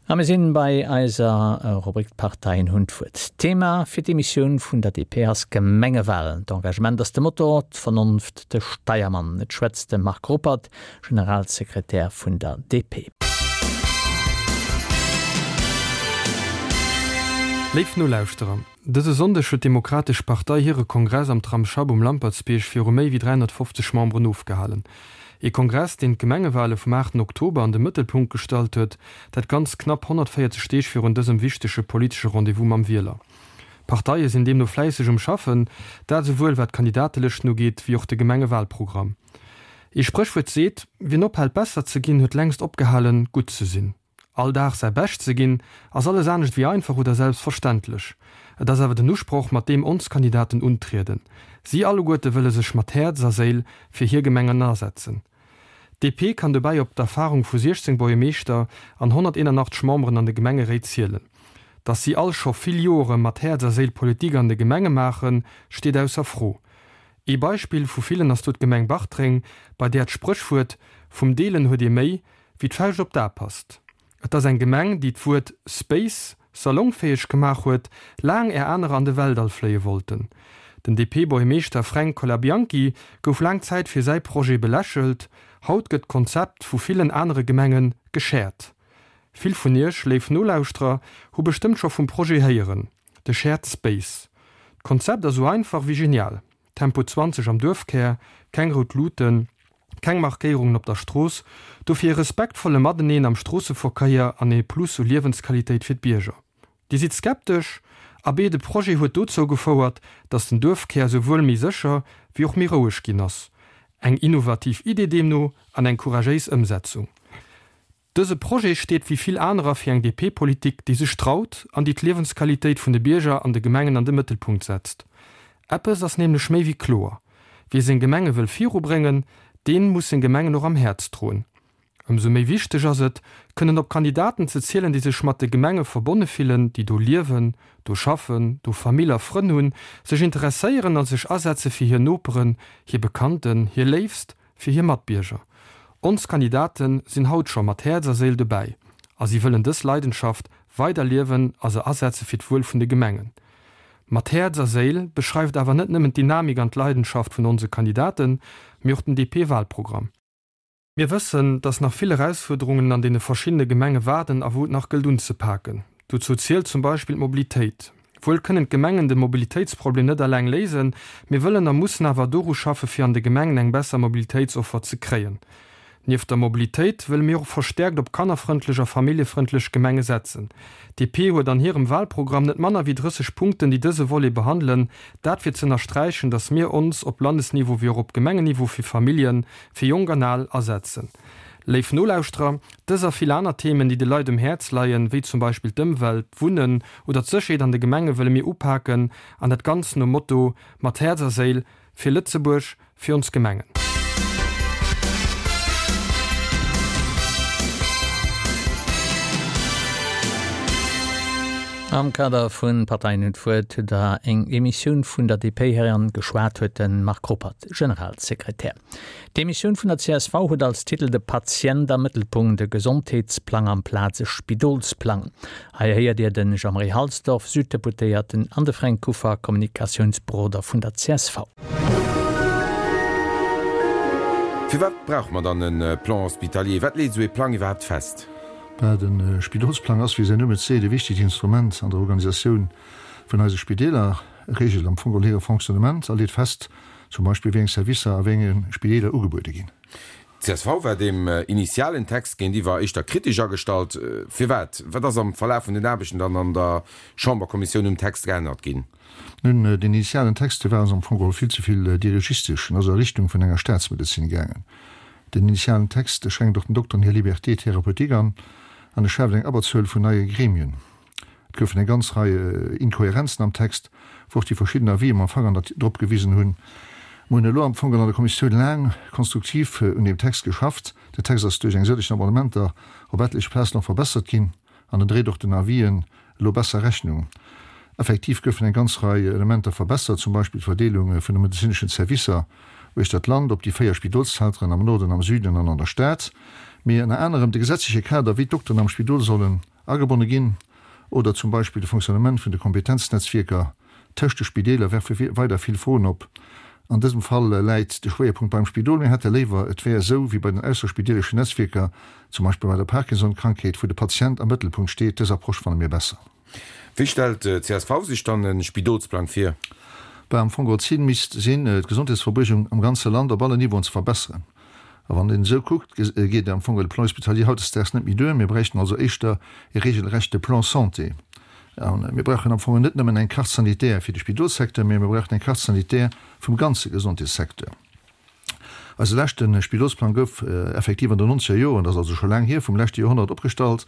A mir sinn bei eiser Rubrik D'Parteien hunn d'Wuert. D'Thema fir d'Emissioun vun der DP ass Gemengewalen. D'Engagement ass de Motor, d'Vernonft de Steiermann. Et schwätzt de Marc Ruppert, Generalsekretär vun der DP. Léif Nolauschterer, dëse Sonndeg huet d'Demokratesch Partei hire Kongress am Tramsschapp um Lampertsbierg viru méi wéi 350 Memberen ofgehalen. Ee Kongress, deen d'Gemengewale vum 8 Oktober an de Mëttelpunkt gestallt huet, dat ganz knapp 140 Deeg virun dësem wichtege politesche Rendez-vous mam Wieler. D'Parteie sinn deemno fläisseg um Schaffen, dat esouwuel wat d'Kandidatelëschten ugeet, wéi och de Gemengewalprogramm. Ee Spréchwuert seet, Wien ophält besser ze ginn, huet längst opgehalen, gutt ze sinn. All Dag säi Bescht ze ginn, ass alles anescht wéi einfach oder selbstverständlech. Et ass awer den Usproch, mat deem ons Kandidaten untrieden. Si alleguerte wëlle sech mat Häerz a Séil fir hir Gemengen asetzen. D'DP kann dobäi op d'Erfarung vu 16 Buergermeeschter an 181 Memberen an de Gemengeréit zielen. Datt si all scho vill Joere mat Häerz a Séil Politik an de Gemenge maachen, steet ausser Fro. Ee Beispill vu villen ass do d'Gemeng Bartreng, bei där d'Spréchwuert vum Deelen huet ee méi wéi d'Fauscht op d'A passt. Et ass eng Gemeng, déi d'Wuert Space salongfäeg gemaach huet, laang är anerer an de Weltall fléie wollten. Den DP-Buergermeeschter Fränk Colabianchi gouf laang Zäit fir säi Projet belächelt, haut gëtt d'Konzept vu villen anere Gemenge geshared. Vill vun iech, léif Nolauschterer, hu bestëmmt scho vum Projet héieren, de Shared Space. D'Konzept ass sou einfach wéi genial, Tempo 20 am Duerfkär, keng rout Luuten, keng Markéierungen op der Strooss, dofir e respektvolle Mateneen am Stroosseverkéier an ee Plus u Liewensqualitéit fir d'Bierger. Dir sidd skeptesch? Abee, de Projet huet dozou gefouert, datt den Duerfkär souwuel méi sécher wéi och méi roueg ginn ass. Eng innovativ Idee deemno an eng couragéis Ëmsetzung. Dëse Projet steet wéi vill anerer fir eng DP-Politik, déi sech traut an déi d'Liewensqualitéit vun de Bierger an de Gemengen an de Mëttelpunkt setzt. Eppes ass nämlech méi wéi kloer, Wie seng Gemenge wëll virubréngen, deen muss seng Gemengen och am Häerz droen. Ëmsou méi wichteg ass et, kënnen op Kandidaten ze zielen, déi sech mat de Gemenge verbonne fillen, déi do liewen, do schaffen, do Famill a Frënn hunn, sech interesséieren a sech asetze fir hir Noperen, hir Bekannten, hir Léifst, fir hir Matbierger. Ons Kandidate sinn haut scho mat Häerz a Séil dobäi a si wëllen dës Leidenschaft weider liewen a se asetze fir d'Wuel vun de Gemengen. Mat Häerz a Séil beschreift awer net nëmmen d'Dynamik an d'Leidenschaft vun onse Kandidaten, mee och den DP-Wahlprogramm. Mir wëssen, dass nach vill Erausfuerderungen an deene verschiddene Gemenge waarden a wou et nach gëllt unzepaken. Dozou zielt zum Beispill d'Mobilitéit. Wuel kënnen d'Gemengen de Mobilitéitsproblem net eleng léisen, mir wëllen a mussen awer doru schaffe fir an de Gemengen eng besser Mobilitéitsoffer ze kréien. Nieft der Mobilitéit wëlle mir och verstäerkt op kannerfrëndlech a familljefrëndlech Gemenge setzen. DP huet an hirem Wahlprogramm net manner wéi 30 Punkten déi dëse Volet behandelen, dat fir z'ënnersträichen, datt mir ons op Landesniveau wéi och op Gemengenniveau fir Familljen, fir Jonk an Al asetzen. Léif Nolauschterer, dës a vill aner Themen, déi de Leit um Häerz leien, wéi zum Beispill d'Ëmwelt, d'Wunnen oder d'Sécherheet an de Gemenge wëlle mir upaken an dat Ganzt nom Motto, Mat Häerz a Séil fir Lëtzebuerg, fir ons Gemengen. Am Kader vun Parteien hunn d'Wuert hutt der eng Emissioun vun der DP héieren. Geschwat huet de Marc Ruppert, Generalsekretär. D'Emissioun vun der csv huet als Titel De Patient am Mëttelpunkt, e Gesondheetsplang amplaz e Spidolsplang. Hei héiert Dir de Jean-Marie Halsdorf, Süddeputéierten, an de Fränk Kuffer, Kommunikatiounsberoder vun der csv. Firwat brauche mer dann e Plan hospitalier? Wat leet esou ee Plang iwwerhaapt fest? Bah, de Spidolsplang ass, wéi säin Numm et seet, e wichtegt Instrument an der Organisatioun vun eise Spideeler. E reegelt am Fong geholl hire Fonctionnement a leet fest, zum Beispill wéi eng Servicer a wéi enge Spideeler ugebuede ginn. D'CSV war deem initialen Text géintiwwer éischter kritesch agestallt. Firwat? Wat ass am Verlaf vun den Aarbechten dann an der Chamberkommissioun um Text geännert ginn? Nun, deen initialen Text, dee war ons am Fong geholl vill ze vill dirigistesch en ass a Richtung vun enger Staatsmedezin gaangen. Den initialen Text, dee schränkt och den Dokteren hir Liberté thérapeutique an an e schaaft eng Abberzuel vun neie Gremien. Et goufen eng ganz Rei Inkohärenzen am Text, wou och déi verschidden Avisen mam Fanger drop gewisen hunn. Mer hunn elo am Fong an der Kommissioun laang konstruktiv un deem Text geschafft. Den Text ass duerch eng sëllegen Amendementer op etleche Plazen och verbessert ginn an en dréit och den Avisen elo besser Rechnung. Effektiv goufen eng ganz Rei Elementer verbessert, zum Beispill d'Verdeelung vun de medezineschen Servicer uechter d'Land op déi 4 Spidolszenteren am Norden, am Süden an an der Stad, mee ënner anerem de gesetzleche Kader, wéi d'Dokteren am Spidol sollen. agebonne ginn. Oder zum Beispill de Fonctionnement vun de Kompetenznetzwierker tëscht de Spideeler werfe weider vill Froen op. An dësem Fall läit de Schwéierpunkt beim Spidol. Mir hätte léiwer, et wär esou wéi bei den ausserspideeleschen Netzwierker, zum Beispill bei der Parkinson-Krankheet, wou de Patient am Mëttelpunkt steet. Dës Approche fanne mir besser. Wéi stellt d'CSV sech dann e Spidolsplang vir? Bah, am Fong d'Zil misst sinn, d'Gesondheetsverbuergung am ganze Land op allen Niveauen ze verbesseren. A wann een esou kuckt, geet am Fong de Plan hospitalier hautdesdaags net méi duer. Mir bräichten also éischter e regelrechte Plan santé. A mir brauchen am Fong net nëmmen eng Carte sanitaire fir de Spidolssecteur, mä mir brauchen eng Carte sanitaire vum ganze Gesondheetssecteur. Eise leschte Spidolsplang gouf effektiv an den nonzeger Joren, dat ass also scho laang hier, vum leschte Joerhonnert opgestallt,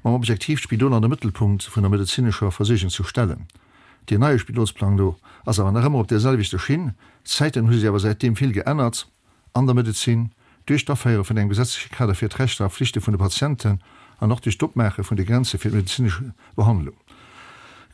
mam Objektiv, d'Spidol an de Mëttelpunkt vun der medezinescher Versuergung ze stellen. Deen neie Spidolsplang do ass awer nach ëmmer op där selwechter Schinn. D'Zäiten hu sech awer säitdeem vill geännert an der Medezin, duerch d'Aféiere vun engem gesetzleche Kader fir d'Rechter a Flichte vun de Patienten an och duerch d'Opmaache vun de Grenze fir d'medezinesch Behandlung.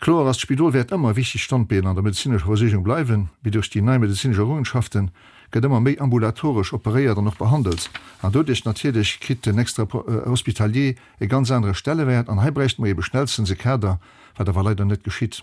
Kloer ass, D'Spidol wäert ëmmer e wichtegt Standbeen an der medezinescher Versuergung bleiwen, mee duerch déi nei medezinesch Errungenschafte gëtt ëmmer méi ambulatoresch operéiert an och behandelt an doduerch natierlech kritt den Extra-hospitalier e ganz anere Stellewäert an hei bräichte mer ebe schnellstens e Kader, wat awer leider net geschitt.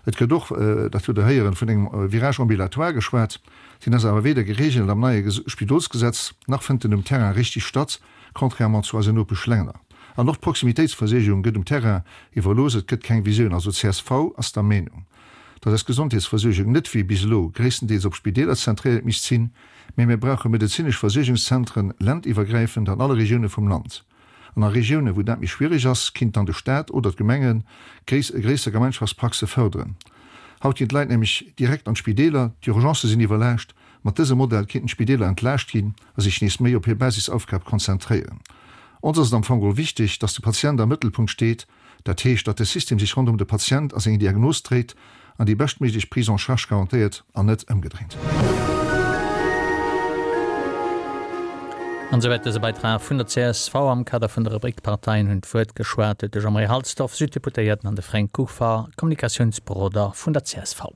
Et gëtt och, dat hutt Der héieren, vun engem Virage ambulatoire geschwat. Deen ass awer weder geregelt am neie Spidolsgesetz, nach fënnt en um Terrain richtig statt, contrairement zu eisen Nopeschlänner. An och d'Proximitéitsversuergung gëtt um Terrain iwwerlooss, et gëtt keng Visioun. Also csv ass der Meenung, datt eis Gesondheetsversuergung net wéi bis elo gréisstendeels op Spideeler zentréiert misst sinn, mä mir brauche medezinesch Versuergungszentren ländiwwergräifend an alle Regioune vum Land. An a Regiounen, wou dat méi schwierig ass, kinnt dann de Staat oder d'Gemenge gréisser Gemeinschaftspraxe fërderen. Haut ginn d'Leit nämlech direkt an d'Spideeler, d'Urgencë sinn iwwerlaascht. Mat dësem Modell kinnten d'Spideeler entlaascht ginn a sech nees méi op hir Basisaufgab konzentréieren. Ons ass et am Fong geholl wichteg, dass de Patient am Mëttelpunkt steet Dat heescht, datt de System sech ronderëm de Patient a seng Diagnos dréit an déi beschtméiglech Prise en charge garantéiert an net ëmgedréint. An esouwäit dëse Beitrag vun der csv. Am Kader vun der Rubrik D'Parteien hunn d'Wuert geschwat huet de Jean-Marie Halsdorf, Süddeputéierten, an de Fränk Kuffer, Kommunikatiounsberoder vun der csv.